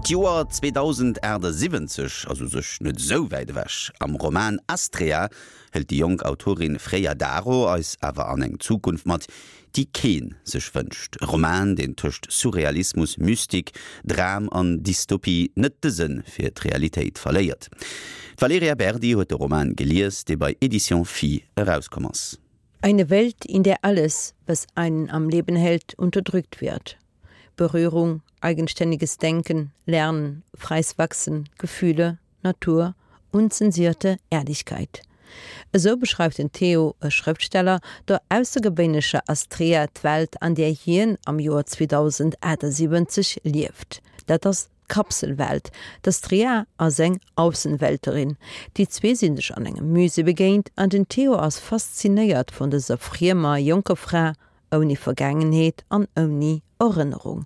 D'Joer 2078 ass u sech net esou wäit ewech. Am Roman Astrea hëlt déi jonk Autorin Freya Daro eis awer an eng Zukunft mat, déi keen sech wënscht. E Roman, deen tëscht Surrealismus, Mystik, Dram an Dystopie net de Sënn fir d'Realitéit verléiert. D'Valerija Berdi huet de Roman gelies, dee bei Editions Phi erauskomm ass. Eine Welt, in der alles, was einen am Leben hält, unterdrückt wird. Berührung, eigenständiges Denken, Lernen, freies Wachsen, Gefühle, Natur, unzensierte Ehrlichkeit. Esou beschreift den Theo, e Schrëftsteller, der aussergewéinlecher Astrea d'Welt, an där hien am Joer 2078 lieft. Dat ass d'Kapselwelt. D'Astrea ass eng Aussenwelterin. Déi zwee sinn sech an engem Musée begéint an den Theo ass faszinéiert vun dëser friemer jonker Fra, ouni Vergaangenheet an ouni Erënnerung.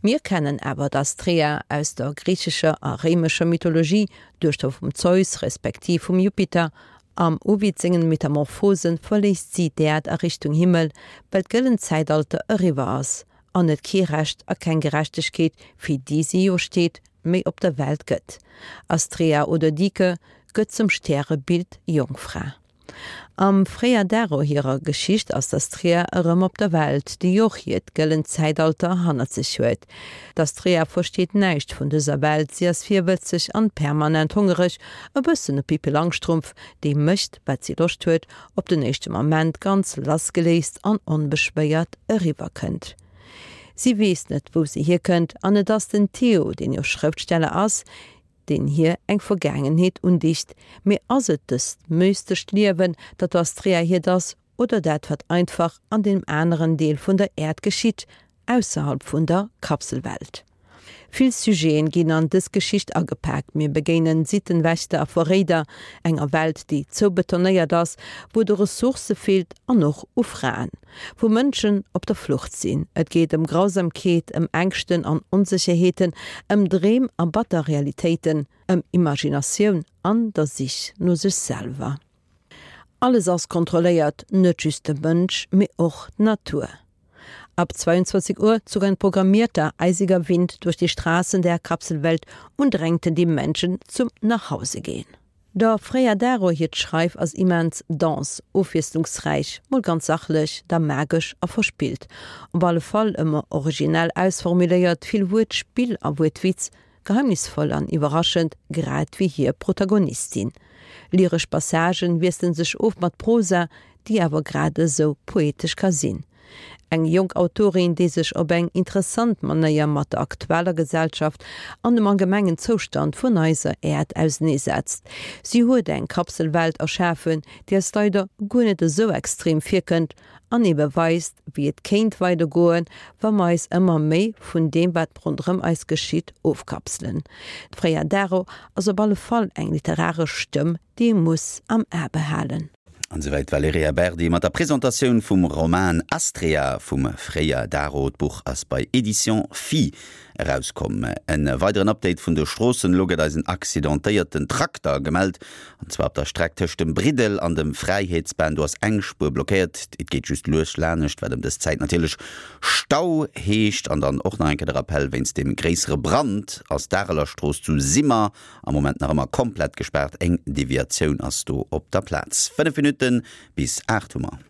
Mir kennen awer d'Astrea aus der griichescher a réimescher Mythologie, Duechter vum Zeus respektiv vum Jupiter. Am Ovid sengen Metamorphosen verléisst si d'Äerd a Richtung Himmel, well d'gëllent Zäitalter eriwwer ass an et kee Recht a keng Gerechtegkeet, fir déi si jo steet, méi op der Welt gëtt. Astrea oder Dike gëtt zum Stärebild Jongfra. Am Freya Daro hirer Geschicht ass d'Astrea erëm op der Welt, déi och hiert gëllent Zäitalter hannert sech huet. D'Astrea versteet näischt vun dëser Welt, si ass virwëtzeg an permanent hongereg, e bëssen e Pippi Langstrumpf, déi mécht wat si Loscht huet, op den éischte Moment ganz lassgeléist an onbeschwéiert eriwwer kënnt. Si weess net wou se hierkënnt an et ass den Theo, deen jo Schrëftsteller ass, deen hir eng Vergaangenheet undicht, mee ass et dëst mystescht Liewen, dat der Astrea hiert ass, oder dat wat einfach an deem aneren Deel vun der Äerd geschitt, ausserhalb vun der Kapselwelt? Vill Sujeten ginn an dës Geschicht agepaakt, mir begéinen Sittenwächter a Verréider, enger Welt déi zoubetonéiert ass, wou et u Ressourcë feelt an och u Fraen. Wou Mënschen op der Flucht sinn. Et geet ëm Grausamkeet, ëm Ängschten an Onsécherheeten, ëm Dreem a batter Realitéiten, ëm Imaginatioun an der Sich no sech selwer. Alles ass kontrolléiert, net just de Mënsch, mee och d'Natur. Ab 22 Uhr zog ein programmierter, eisiger Wind durch die Straßen der Kapselwelt und drängte die Menschen zum Nachhausegehen. Der Freya Daro hiert Schreif ass immens dense, ofwiesslungsräich, mol ganz sachlech, da magesch a verspillt. Op alle Fall ëmmer originell ausformuléiert, vill Wuertspill a Wuertwitz, geheimnisvoll an iwwerraschend, grad wéi hir Protagonistin. Lyresch Passagen wiesselen sech of mat Prosa, déi awer grad esou poetesch ka sinn. Eng jonk Autorin, déi sech op eng interessant Manéier mat der aktueller Gesellschaft an dem allgemengen Zoustand vun eiser Äerd auseneesetzt. Si huet eng Kapselwelt erschafen, déi eis leider guer net esou extrem virkënnt an ebe weist, wéi et kéint weidergoen, wa mer eis ëmmer méi vun deem, wat ronderëm eis geschitt, ofkapselen. D'Freya Daro ass op alle Fall eng literaresch Stëmm, déi ee muss am A behalen. An esouwäit d'Valerija Berdi mat der Presentatioun vum Roman Astrea vum Freya Daro. D'Buch ass bei Editions Phi erauskomm. En weideren Update vun de Stroossen, Elo gëtt eis en accidentéierten Trakter gemellt, an zwar op der Streck tëscht dem Briddel an dem Fräiheetsban. Do ass eng Spuer blockéiert, et geet just lues lanescht, wat ëm dës Zäit natierlech Stau heescht. An dann och nach eng Kéier de Rappell, Wéinst dem gréissere Brand ass d'Arelerstrooss zu Simmer Am Moment nach ëmmer komplett gespaart, eng Deviatioun ass do op der Plaz. 5 Minutte bis 8 hu mer.